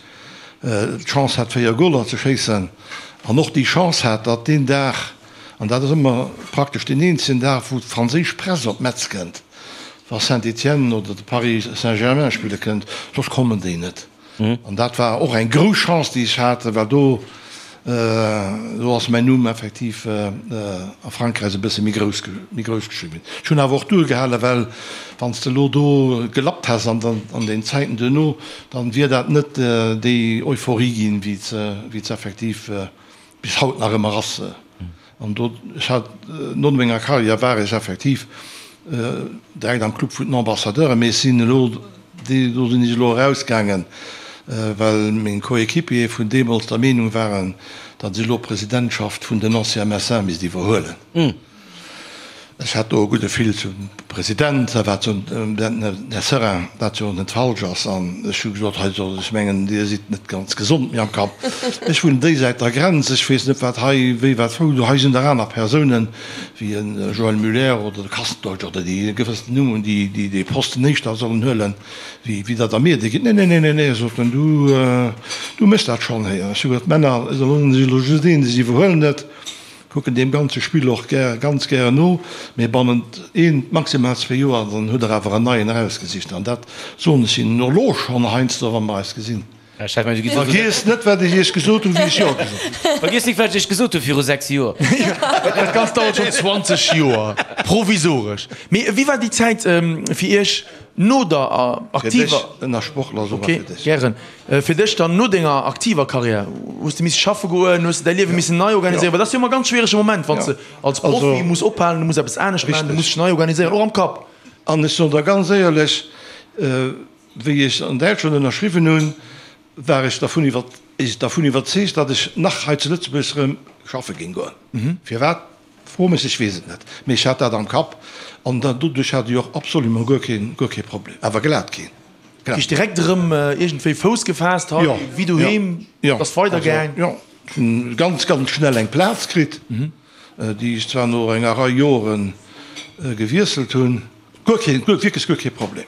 d'Chance hat 4 Goler ze schéissen an och déi Chance hat, datt deen Dag, an dat ass ëmmer praktesch deen eenzegen Dag, wou d'franséisch Press op Metz kënnt, wa Saint-Étienne oder de Paris Saint-Germain spille kënnt, soss kommen déi net. An dat war och eng grouss Chance, déi ech hat, well do, do ass mäin Numm effektiv a Frankräich e bësse méi grouss, méi grouss geschriwwen ginn. Ech hunn awer och duergehalen, well wann s de elo do gelappt häss an an den Zäiten duerno, dann wier dat net déi Euphorie ginn, wéi se, wéi se effektiv bis haut nach ëmmer ass. An do, ech hat, no menger Karriär war ech effektiv direkt am Club vun den Ambassadeuren, mee ech sinn elo, do sinn ech elo erausgaangen, well meng Coéquipiere vun deemools der Meenung waren, datt ech elo d'Presidentschaft vun den Anciens Messins misst iwwerhuelen. Ech hat do e gudde Fil zum President, wat jo, den Här Seurin, wat jo net falsch ass. An ech hu gesot, hei soll, ech mengen, Dir sidd net ganz gesond méi am Kapp. Ech wunnen déi Säit der Grenz, ech weess net, wat hei, wéi, wat, wou. Do hei sinn der aner Persounen, wéi e Joël Muller oder de Kastendeutsch oder déi e gewëssenen Numm hunn, déi, déi dee Posten éischter sollen huelen, wéi, wéi datt Der mir dee gitt. Nee, nee, nee, nee, nee, sot en, du, du méchs dat schonn héi. An ech hu gesot, Männer, elo sinn ech elo just een, ech iwwerhuelen et. Kucken deem ganze Spill och gär, ganz gären no, mee bannent een, maximal zwee Joer, dann hutt der awer en neien erausgesicht. An dat soen ech hinnen och elo schonn heiansdo, wa mer eis gesinn. Vergiesst net, wat ech iech gesot hunn, wéi ech Jo gesot hunn. Vergiesst nik, wat ech iech gesot hu viru 6 Joer. Dat Ganzt dauert schonn 20 Joer, provisoresch. Mee wéi war déi Zäit fir iech no der Fir dech, aktiver. Ënnersportler, soe mer fir dech. Ok, gären. Fir dech dann no denger aktiver Karriär, hues de misse schaffe goen, hues de däi Liewe missen nei organiséieren? Well dat ass jo ëmmer e ganz schwierege Moment, wann s de als Profi muss ophalen, du muss eppes anescht maachen, du muss dech nei organiséieren, och am Kapp. An ech soen der ganz éierlech, wéi ech an Däitschland ënnerschriwwen hunn, war ech dervun dervun iwwerzeegt, datt ech nach hei zu Lëtzebuerg erëm schaffe géing goen. Firwat? Fro mech, ech weess et net, mee ech hat dat am Kapp an doduerch hat ech och absolument guer keen, guer kee Problem, awer glat keen. Heescht direkt erëm iergendwéi Fouss gefaasst hei, wéi doheem, et ass weider gaang? Jo, ech hunn ganz, ganz schnell eng Plaz kritt, déi ech zwar no enger Rei Jore gewiesselt hunn. Guer keen, wierklech guer kee Problem.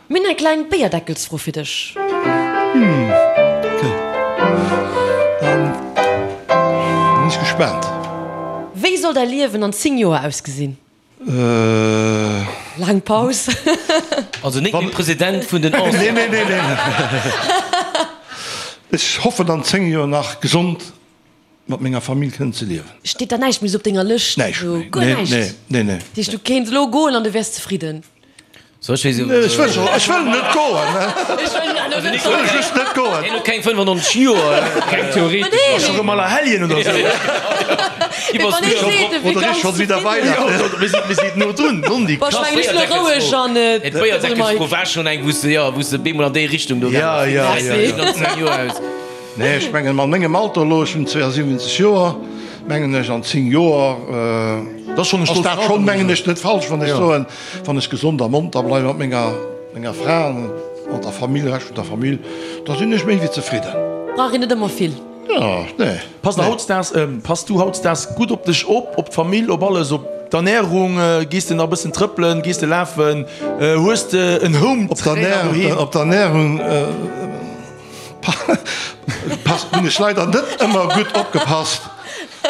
Mir hunn eng kleng Béierdeckelsfro fir dech. Ok, dann sinn ech gespaant. Wéi soll däi Liewen an 10 Joer ausgesinn? Laang Paus. Also net méi President vun den Anciens. Nee, nee, nee, nee. Ech hoffen an 10 Joer nach gesond mat menger Famill kënnen ze liewen. Steet da näischt méi sou op denger Lëscht? Näischt méi. Guer näischt? Nee, nee, nee. Dat heescht, du kéints elo goen an du wäers zefridden? So, ech weess Ech wëll scho, ech wëll net goen. Ech wëll just net goen. Hien huet keng 95 Joer. Keng theoretesch. Ass scho rëm Allerhelljen oder sou. Oder ist schon wieder Weihnachten. Mir si, mir si no drun. Nondi. Boah, ech mengen, ech elo roueg an et. D'Béierdeckelsfro war schonn eng, wou s de, jo, wou s de bemol an déi Richtung do gaange bass. Ja, ja, ja. Nee, ech mengen, mat mengem Alter elo, ech hunn 72 Joer, mengen ech, an 10 Joer ass dat schonn, mengen ech, net falsch, wann ech soen, Wann ech gesond a monter bleiwen mat menger menger Fra an mat der Famill, Rescht vun der Famill, da sinn ech méi wéi zefridden. Brauch een net ëmmer vill. Jo, nee. Passt der hautdesdaags, pass du hautdesdaags gutt op dech op, op d'Famill, op alles, op d'Ernärung? Gees de nach e bëssen trëppelen, gees de lafen, hues de en Home Trainer doheem? Op d'Ernärung passt, hunn ech leider net ëmmer gutt opgepasst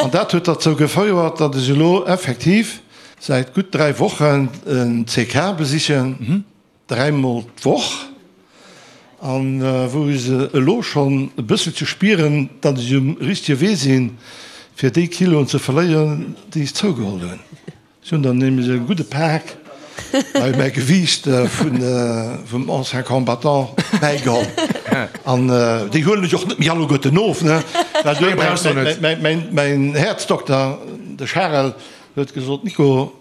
an dat huet derzou gefouert, datt ech elo effektiv Säit gutt 3 Wochen en CK besichen, dräimol d'Woch, an wou ech elo schonn e bësselche spieren, datt ech um richtege Wee sinn, fir déi Kiloen ze verléieren, déi ech zougeholl hunn. Ech hunn der nämlech e gudde Pak bei mäi Gewiicht vum Ancien Combattant bäigeholl. An déi huelen ech och net méi alleguerten of, ne? Well mäin Häerzdokter, de Charel, Huet gesot, Nico,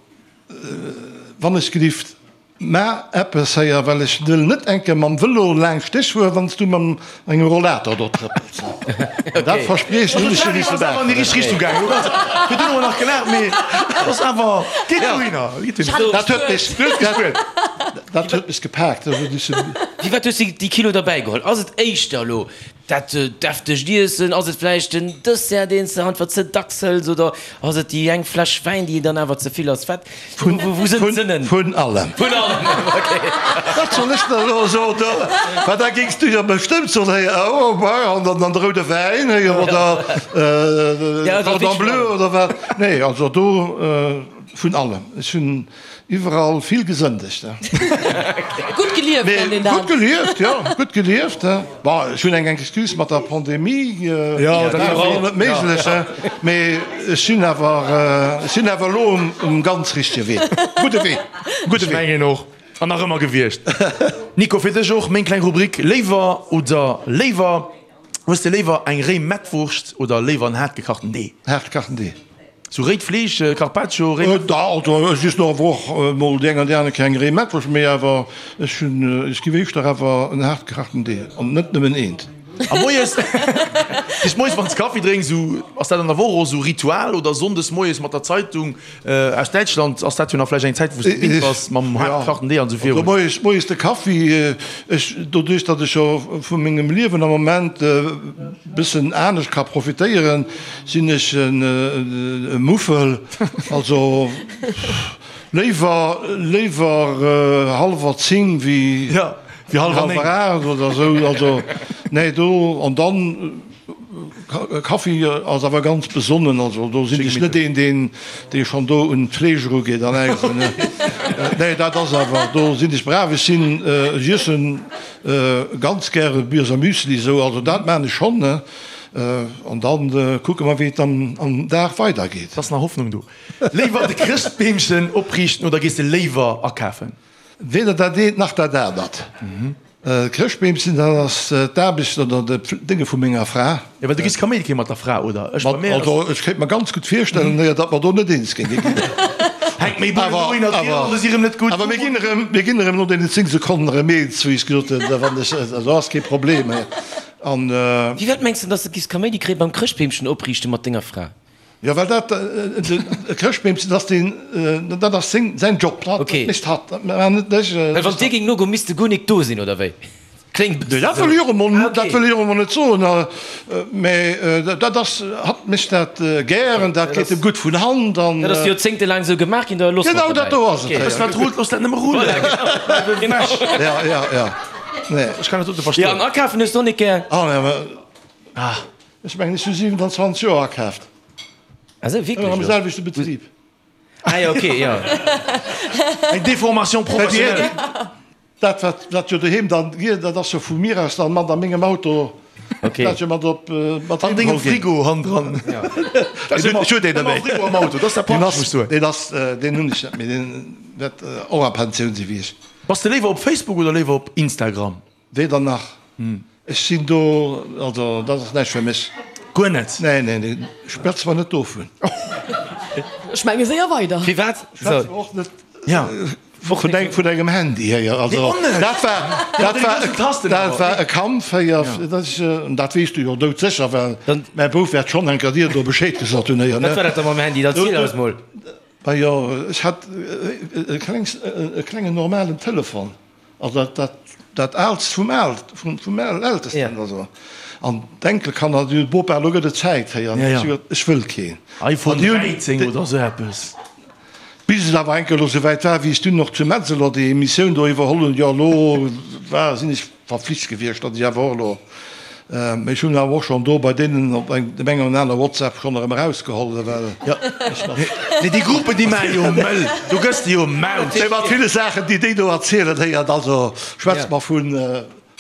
wann ech gelift. Mä eppes héier, well ech wëll net eng Kéier mam Vëlo laanscht dech fueren, wann s du mam engem Rollator do trëppels. Dat Verspriechen hunn ech jo misse maachen. An déi richteg Richtung gaangen. Virdrun hu mer nach gelaacht, mee et ass awer, geet dohinner, geet dohinner. Dat huet mech, dat huet mech gepaakt. Firwat hues de déi Kilo derbäi geholl? Ass et éischter elo Dat deftegt Iessen, ass et vläicht den Dessert, deen s de einfach ze dacks hëls oder ass et déi eng Fläsch Wäin, déi dann awer ze vill ass? Wat, wou sënn d'Sënnen? Vun allem. Vun allem, ok. Wat soll ech der elo soen? Well da géings du jo bestëmmt soen, héi, oh, bah, an dann de roude Wäin, héi, oder Cordon bleu oder wat. Nee, also do vun allem. Ech hunn Iwwerall vill gesëndegt. Gutt gelieft nennt een dat. Gutt gelieft, jo, gutt gelieft. Bon, ech hunn eng Excuse mat der Pandemie, jo, dat war och net méiglech, mee ech sinn awer, ech sinn awer elo um ganz richtege Wee, gudde Wee, gudde Wee. Ech mengen och, an nach ëmmer gewiescht. Nico, fir dech och meng kleng Rubrik, Léiwer oder léiwer? Hues de léiwer eng réi Mettwurscht oder léiwer en haart gekachten Dee? Haart gekachten Dee. Sou réit Fleesch, Carpaccio, réi Mettwurscht? Da, also ech iessen och awer och mol déi eng an déi aner Kéier eng réi Mettwurscht, mee awer ech hunn, ech giff éischter awer en haart gekachten Dee an net nëmmen eent. A moies, bis moies wann s Kaffi drénks, sou ass dat an der Woch och sou Ritual oder sonndes moies mat der Zeitung aus Däitschland ass dat jo nach vläicht eng Zäit wou s de gewinnt bass mam haart gekachten Dee an sou virun. Also moies, moies de Kaffi, ech, doduerch datt ech jo vu mengem Liewen am Moment e bëssen anescht ka profitéieren, sinn ech e Muffel, also léiwer, léiwer hallwer 10 wéi hallwer 8 oder esou, also nee do an dann Kaffi ass awer ganz besonnen, also do sinn ech net een, deen dee schonn do un d'Fleesch erugeet an äis. Nee, dat ass awer, do sinn ech brav. Ech sinn, ech iessen ganz gäre Birser Müsli esou, also dat maan ech schonn, ne. An dann kucke mer, wéi et dann am Dag weidergeet. Et ass nach Hoffnung do. Léiwer de Chrëschtbeemchen opriichten oder gees de léiwer akafen? Weder dat eent nach dat anert. Chrëschtbeemchen, dat ass d'Aarbecht oder de Dénge vu menger Fra. Jo, well du giss Kaméidi kréie mat der Fra, oder? Ech bei mir ass. Also ech kéint mer ganz gutt virstellen, jo, datt mer do net eens géinge ginn. Hänkt méi Bullen dohinner, d'Virhänge si rëm net gutt. Awer mir ginn erëm, mir ginn erëm no deenen 10 Sekonnen erëm eens, wéi ech gesot hunn, da wann ech, also ass kee Problem. An. Wéi wat mengs de, datt s de giss Kaméidi kréie beim Chrëschtbeemchen opriichte mat denger Fra? Jo, well dat e Chrëschtbeemchen, dat ass deen, dat ass seng, säin Job, dat mécht hatt, dat maachen net ech. Well wann dir géing nogoen, misst de guer nik do sinn, oder wéi? Kléngt e bëssen Dat wëll ech och emol, dat wëll ech och emol net soen, mä dat ass, hatt mécht dat gären, dat geet em gutt vun Hand an. Dat ass joerzéngtelaang esou gemaach ginn, da loosse mer et dobäi. Genau dat do ass et. Wëss wat rullt, looss dat nëmme rullen. Voilà, genau. Ja, ja, ja, nee. Ech kann dat dote verstoen. Jo, an akafen hues de och nik gär? Ah, nee, mä. Ech mengen, ech hu 27 Joer akaaft. Ah sou, wierklech? Am selwechte Betrib. Ah jo, ok, jo. Eng Déformation professionnelle. Dat, wat, wat jo doheem dann geet, dat ass jo vu mir aus dann mat a mengem Auto. Ok. Dat jo mat op, mat An dengem Frigo hannendran. Ja. Ech hu deen net méi. Frigo am Auto, dat ass dat Praktesch, muss ech soen. Deen ass, deen hunn ech net méi. Deen wäert och a Pensioun si wéi ech. Bass de léiwer op Facebook oder léiwer op Instagram? Weder nach. Ech sinn do, also dat ass näischt fir mech. Guer net? Nee, nee, nee, schwätze mer net dovun. Ech menge séier weider. Firwat? Schwätze mer och net vun engem Handy héier. Also dat war, dat war, dat war e Kampf héier, dat ech, dat weess du jo doudsécher, well mäi Bouf wäert schonn enker dir do Bescheed gesot hunn héier, ne? Wat war dat da mam Handy? Erziel eis mol. Majo, ech hat e klengs, e klengen normalen Telefon. Also dat, dat Aalst vum Aalt, vum, vum Ältesten also. An d'Enkelkanner, déi hunn, Bopa, elo gëtt et Zäit, héi. An ech hu gesot, ech wëll keen. iPhone 13 oder esou eppes. Bis et awer eng Kéier elo souwäit war, wéi ech dunn och zu Metzeler déi Emissioun do iwwerholl hunn, jo elo war, sinn ech verflicht gewiescht, datt ech awer och elo Mee ech hunn awer och schonn do bei deenen op eng, dem engen oder aner WhatsApp schonn erëm erausgeholl, well ech nach. Nee, déi Gruppen, déi maache jo mëll, do gëss de jo maut. Nee, mat ville Saachen, déi déi do erzielen, héiert, also schwätzt mer vun.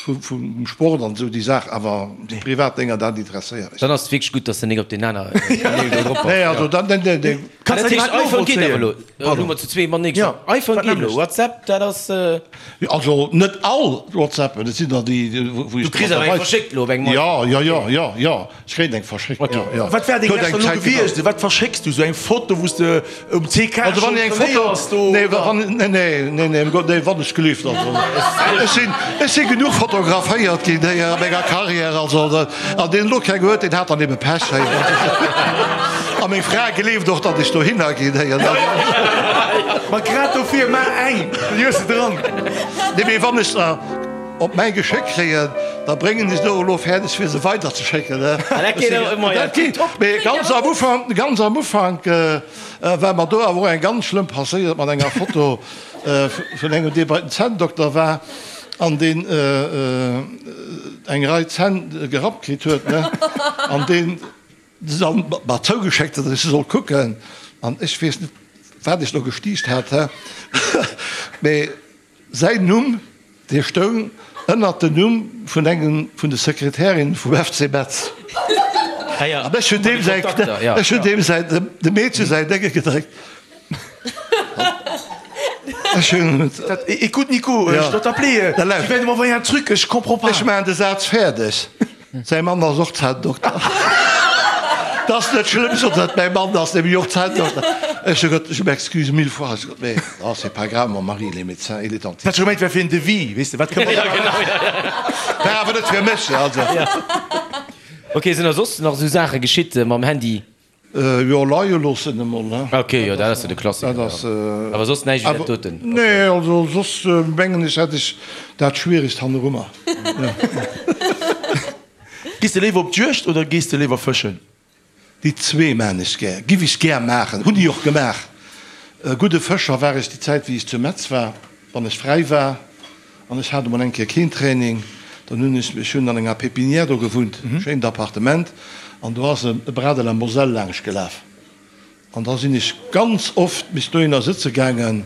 Vum Sport an esou déi Saach, awer déi privat Dénger, dat interesséiert mech. Dann ass et wierklech gutt, dass de nik op deen aner Kanäl do drop bass. Nee, also dann, nee, nee. Kanns dat heescht, iPhone geet awer elo? Elo hu mer zu zwee matenee geschwat. iPhone geet elo, WhatsApp, dat ass. Also net all WhatsAppen, et sinn der déi, wou ech. Du kriss awer eng verschéckt elo op engem iPhone? Jo, jo, jo, jo, jo. Ech kréien eng verschéckt, jo, jo. Wat wär deng lescht elo gewiescht? Wat verschécks du? Sou eng Foto, wou s de um CK schonn trainéiers do? Nee, wann, nee, nee, nee, nee, nee, wann ech gelift, also ech sinn, ech si genuch fotograféiert ginn héi a menger Carrière, also an deen elo keng huet, deen hat dann ebe Pech héi. A meng Fra gleeft och, datt ech dohinner ginn héi. Ma grad dofir, maach eng, dann hues de dran. Nee, mee wann ech der. Op mäi Geschéck kréien, da bréngen ech se och elo fäerdeg fir se weider ze schécken. Dat geet top. Mee ganz am Ufank, ganz am Ufank war mer do awer och eng ganz schlëmm passéiert mat enger Foto vun engem dee bei den Zänndokter war an deen eng Rei Zänn gerappt kritt huet, ne, an deen se dann mer zougeschéckt huet, datt ech se soll kucken an ech weess net wat ech do gestiicht hat, mee Säin Numm, dee stoung ënnert den Numm vun engem vun de Sekretärinnen vum FC Metz. An ech hunn deem säi, ech hunn deem säi, dem Meedche säin Dénge gedréckt. Ech hunn. Écoute Nico, je dois t'appeler, tu viens de m'envoyer un truc, je comprends pas. Ech maachen de Saz fäerdeg. Säi Mann ass och Zänndokter. 't ass net schlëmm, sot hatt, mäi Mann ass nämlech och Zänndokter. Ech hu gesot, Je m'excuse mille fois. Ech hu gesot, Mais non, c'est pas grave, mon mari, il est médecin, il est dentiste. Hat scho gemengt, wär fir en Devis, weess de, wat kënne mer da War awer net fir mech, also. Ok, sinn der soss nach esou Saache geschitt mam Handy? Jo, leie loossen emol, ne? Ok, jo, dat ass jo de Klassiker, jo. Awer soss näischt wéi dat doten? Nee, also soss mengen ech hätt ech dat Schwieregst hannerummer. Gees de léiwer op d'Juegd oder gees de léiwer fëschen? Déi zwee maan ech gär, giff ech gär maachen, hunn ech och gemaach. E gudde Fëscher war ech déi Zäit wéi ech zu Metz war, wann ech fräi war. An ech hat emol eng Kéier keen Training, dann hunn ech, ech hunn an enger Pépinière do gewunnt, schéint Appartement, an do ass e Bras de la Moselle laangscht gelaf. An da sinn ech ganz oft bis dohinner sëtze gaangen.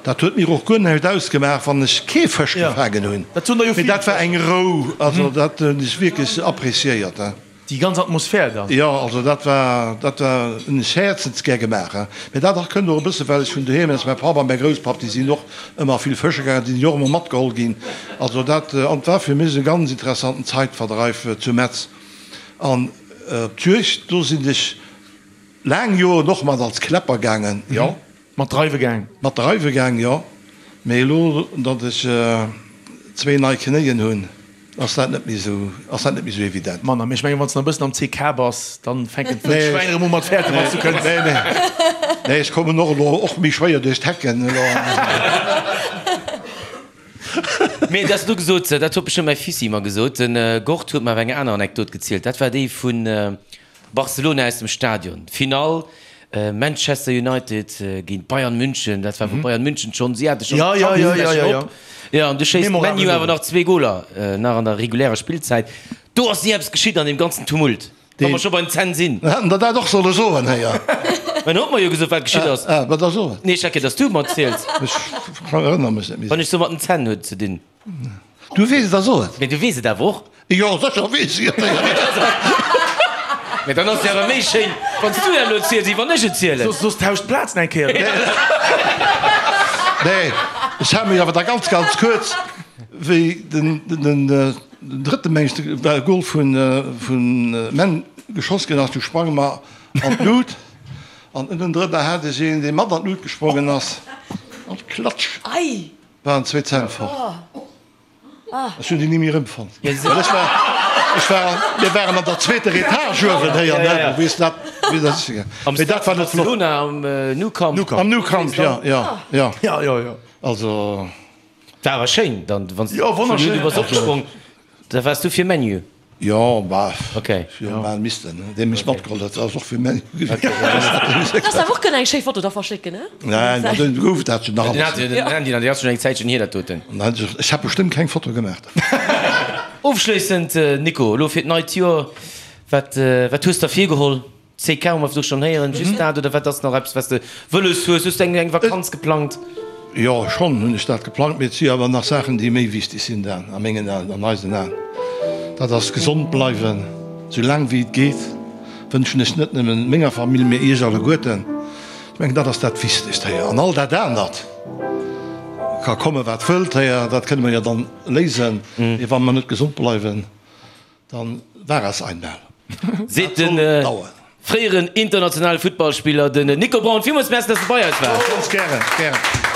Dat huet mir och guer näischt ausgemaach, wann ech kee Fësch gefaangen hunn, mee dat war eng Rou, also dat hunn ech wierklech appréciéiert. Déi ganz Atmosphär dann. Jo, also dat war, dat war, hunn ech häerzensgär gemaach. Mä dat och kënnt och e bësse well ech vun doheem aus, mäi Papp a mäi Grousspapp, déi sinn och ëmmer vill fësche gaangen, déi sinn jo och ëmmer matgeholl ginn. Also dat, an et war fir mech e ganz interessanten Zeitverdreif zu Metz. An op d'Juegd, do sinn ech laang Joren och mat als Kläpper gaangen, jo. Mat dreiwe gaang? Mat dreiwe gaang, jo. Mee elo, datt ech zwéi nei Knéien hunn, ass dat net méi esou, ass dat net méi esou evident. Manner. Mee ech mengen, wann s de nach e bëssen am CK bass, dann fänken d'Wëllschwäin erëm u mat fäerten, wann s du kënns. Nee, nee. Nee, ech kommen och elo och méi schwéier duerch d'Hecken elo. Mee dat s du gesot, dat huet bestëmmt mäi Fissi mer gesot. De Gord huet mer awer eng aner Anekdot gezielt. Dat war déi vun Barcelona aus dem Stadion, Finall Manchester United géint Bayern München, dat war wou Bayern München schonn, si hate schonn d'Champions League op, jo an du schéisst ManU awer nach zwee Goler nach an der regulärer Spillzäit. Do ass ni eppes geschitt an deem ganzen Tumult, wa mer scho beim Zen sinn. Hätten der dat och solle soen, héier. Mä en huet mer jo gesot wat geschitt ass. Ah, wat da soen? Nee, ech hat geduecht, dass du et mer erziels. Ech erënnere mech net méi. Wann ech sou mat den Zänn huet ze dinn. Du weess et, da so et. Mee du weess et awer och. Jo, sécher weess ech et. Mee dann ass et awer méi schéin, wann s du dat elo ziels, wéi wann ech et zielen. Soss tauscht d'Plazen eng Kéier. Nee, ech hale mech awer da ganz, ganz kuerz, wéi den drëtte, meng ech, Gol vun Man geschoss ginn ass, du sprange mer an d'Lut an ënnendrënner hat ech een, dee mat an d'Lut gesprongen ass, an klatsch! Waren zwee Zänn fort. Ech hunn déi ni méi erëmfonnt. Well ech war, ech war, mir waren an der zweeter Etage uewen héier, ne? Du weess dat, wéi dat ass. Am Mee dat war net flott. Barcelona am Nou Camp. Am Nou Camp, ja, ja, ja. Ja, ja, ja. Also. War awer schéin dann, wann s Jo, wonnerschéin. Du bass opgesprong, da waars du fir ManU. Jo, bah, Okay. jo, mal missten, ne? Dee mech matgeholl huet, ass och fir ManU gewiescht. Kanns awer och kënnen eng schéi Foto da verschécken, ne? Nein, ma dunn gouf dat jo nach Den hat alles. den Handy, dat ass schon eng Zäitchen hier dat doten. Nein, ech hat bestëmmt keng Foto gemaach. Ofschléissend, Nico, elo fir d'neit Joer, wat, wat hues der virgeholl? CK hu mer virdru schonn héieren, just dat oder wat ass nach eppes, wat s de wëlles hues? Hues du eng, eng Vakanz geplangt? Jo, schonn hunn ech dat geplangt, mee et si awer nach Saachen, déi méi wichteg sinn dann a mengen Aen, an eisen Aen. Dat ass gesond bleiwen, sou laang wéi et geet, wënschen ech net nëmmen menger Famill, mee iech alleguerten. Ech mengen, dat ass dat Wichtegst héier. An all dat anert ka komme wat wëllt héier, dat kënne mer jo dann léisen. Mee wa mer net gesond bleiwen, dann war es einmal. Seet de fréieren internationale Futtballspiller, den Nico Braun. Villmools Merci, dass de bei eis waars. Ganz gären, gären.